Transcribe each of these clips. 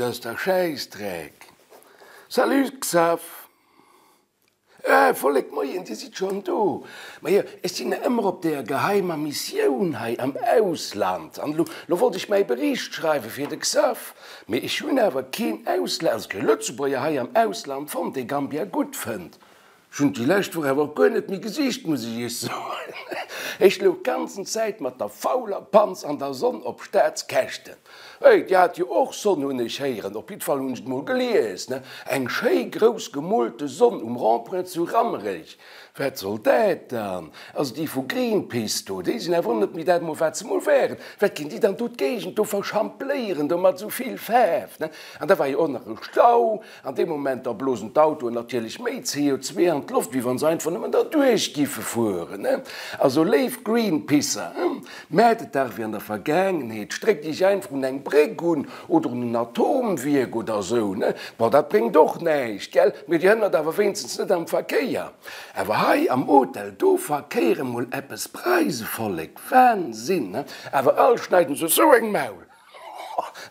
ass dach Schäissdreck. Salut Xaph. Ah, Vollek, moien, Dir sidd schonn do. Majo, ech sinn nach ëmmer op deeër geheimer Missioun hei am Ausland. An elo, elo wollt ech mäi Bericht schreiwe fir de Xaph. Mee ech hunn awer keen Ausla-, also kee Lëtzebuerger hei am Ausland fonnt, dee Gambia gutt fënnt. Ech hunn déi lescht Woch awer och guer net méi gesicht, muss ech Iech soen. Ech louch d'ganzen Zäit mat der fauler Panz an der Sonn op Staatskäschten. Hey, Dir hat jo och Sonn, hunn ech héieren, op jiddwer Fall hunn ech et mol gelies, ne? Eng schéi grouss gemoolte Sonn um Rond-point zu Rammerech. Wat soll dat dann? Also déi vu Greenpeace do, déi sinn awer och net méi dat mol, wat se mol waren. Wat ginn déi dann do d'Géigend do verschampléieren do mat esou vill Faarf, ne? An da war jo och nach e Stau. An deem Moment da blosen d'Autoen natierlech méi CO2 an d'Loft, wéi wann se einfach nëmmen derduerch giffe fueren. Also léif Greenpeacer, maacht et dach wéi an der Vergaangenheet, stréckt iech einfach un eng Bréck un oder un en Atomwierk oder esou. Bon, dat bréngt och näischt, gell, mee dir hënnert awer wéinstens net am Verkéier. Awer hei am Hotel, do verkéiere mol eppes Preisevollek, Wahnsinn! Awer all schneiden se esou eng Maul.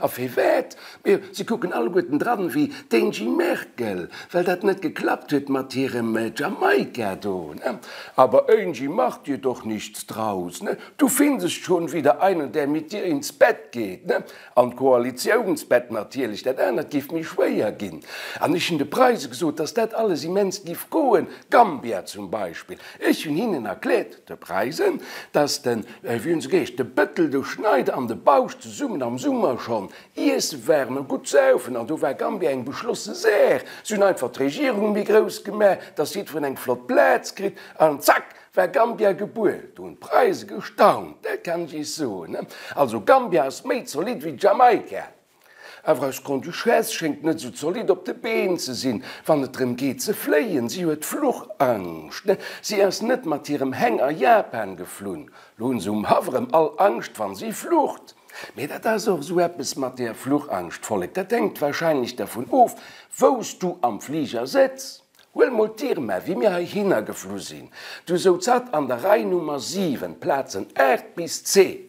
A firwat? Mee se kucken alleguerten dran wéi d'Angie Merkel, well dat net geklappt huet mat hirem Jamaika do, ne? Aber Angie, mach dir doch nichts draus, ne? Du findest schon wieder einen, der mit dir ins Bett geht, ne? An d'Koalitiounsbett natierlech, dat anert géif méi schwéier ginn. An ech hunn de Preise gesot, dass dat alles immens giff goen, Gambia zum Beispill. Ech hunn hinnen erkläert, de Preisen, dass den, wéi hunn se geheescht, de Bëttel, de Schneider an de Bausch zesummen am Summer schonn iesse waren a gutt saufen, an do war Gambia eng beschlosse Saach. Se hunn einfach d'Regierung méi grouss gemaach, dass jiddwereen eng flott Plaz kritt, an zack war Gambia gebuer. Do hunn d'Preise gestaunt, dat kann ech iech soen. Also Gambia ass méi zolidd wéi Jamaika. Awer eis Grande-Duchesse schéngt net esou zolidd op de Been ze sinn, wann et drëm geet ze fléien. Si huet Fluchangscht. Si ass net mat hirem Heng a Japan geflunn. Lo hunn se um Haff erëm all Angscht, wann si flucht. Mee dat ass och esou eppes mat där Fluchangscht, Vollek. Dat hänkt warscheinlech dervun of, wou s du am Fliger sëtz. Huel mol d'Irma, wéi mir heihinner geflu sinn, du souz hatt an der Rei Nummer 7, Plazen 8 bis 10.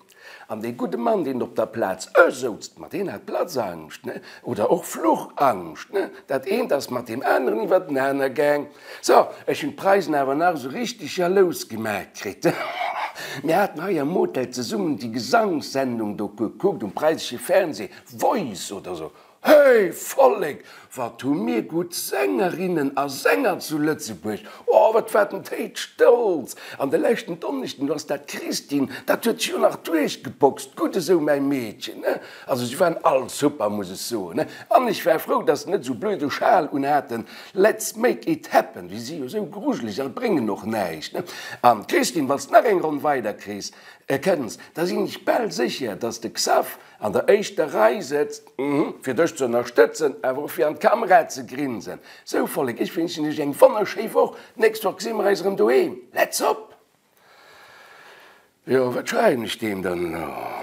An dee gudde Mann, deen op der Plaz e souz, ma deen hat Platzangscht, ne? Oder och Fluchangscht, ne? Dat eent ass mat deem aneren iwwertenaner gaang. So, ech hunn d'Preisen awer nach esou richteg jalous gemaach kritt. Mir haten hei am Hotel zesummen déi Gesangssendung do gekuckt um preisesche Fernseh, Voice oder esou. Hey Vollek, wat hu mir gutt Sängerinnen a Sänger zu Lëtzebuerg! Oh, wat war den Théid stolz! An de leschten Donneschden, do ass dat Christine, dat huet sech jo nach duerchgeboxt. Gutt esou, mäi Meedchen, ne? Also si waren all super, muss ech soen, ne? An ech war frou, dass se net esou blöde Schal unhaten, Let's make it happen, déi si jo esou grujeleg a bréngen och näischt, ne? An Christine, wann s de nach eng Ronn weider kriss, kënns, da sinn ech bal sécher, dass de Xaph An der éischter Rei sëtzt, fir dech ze ënnerstëtzen, awer och fir an d'Kamera ze grinsen. Sou Vollek, ech wënschen iech eng wonnerschéi Woch. D'nächst Woch gesi mer eis erëm doheem. Let's op! Jo, wat schreiwen ech deem dann elo?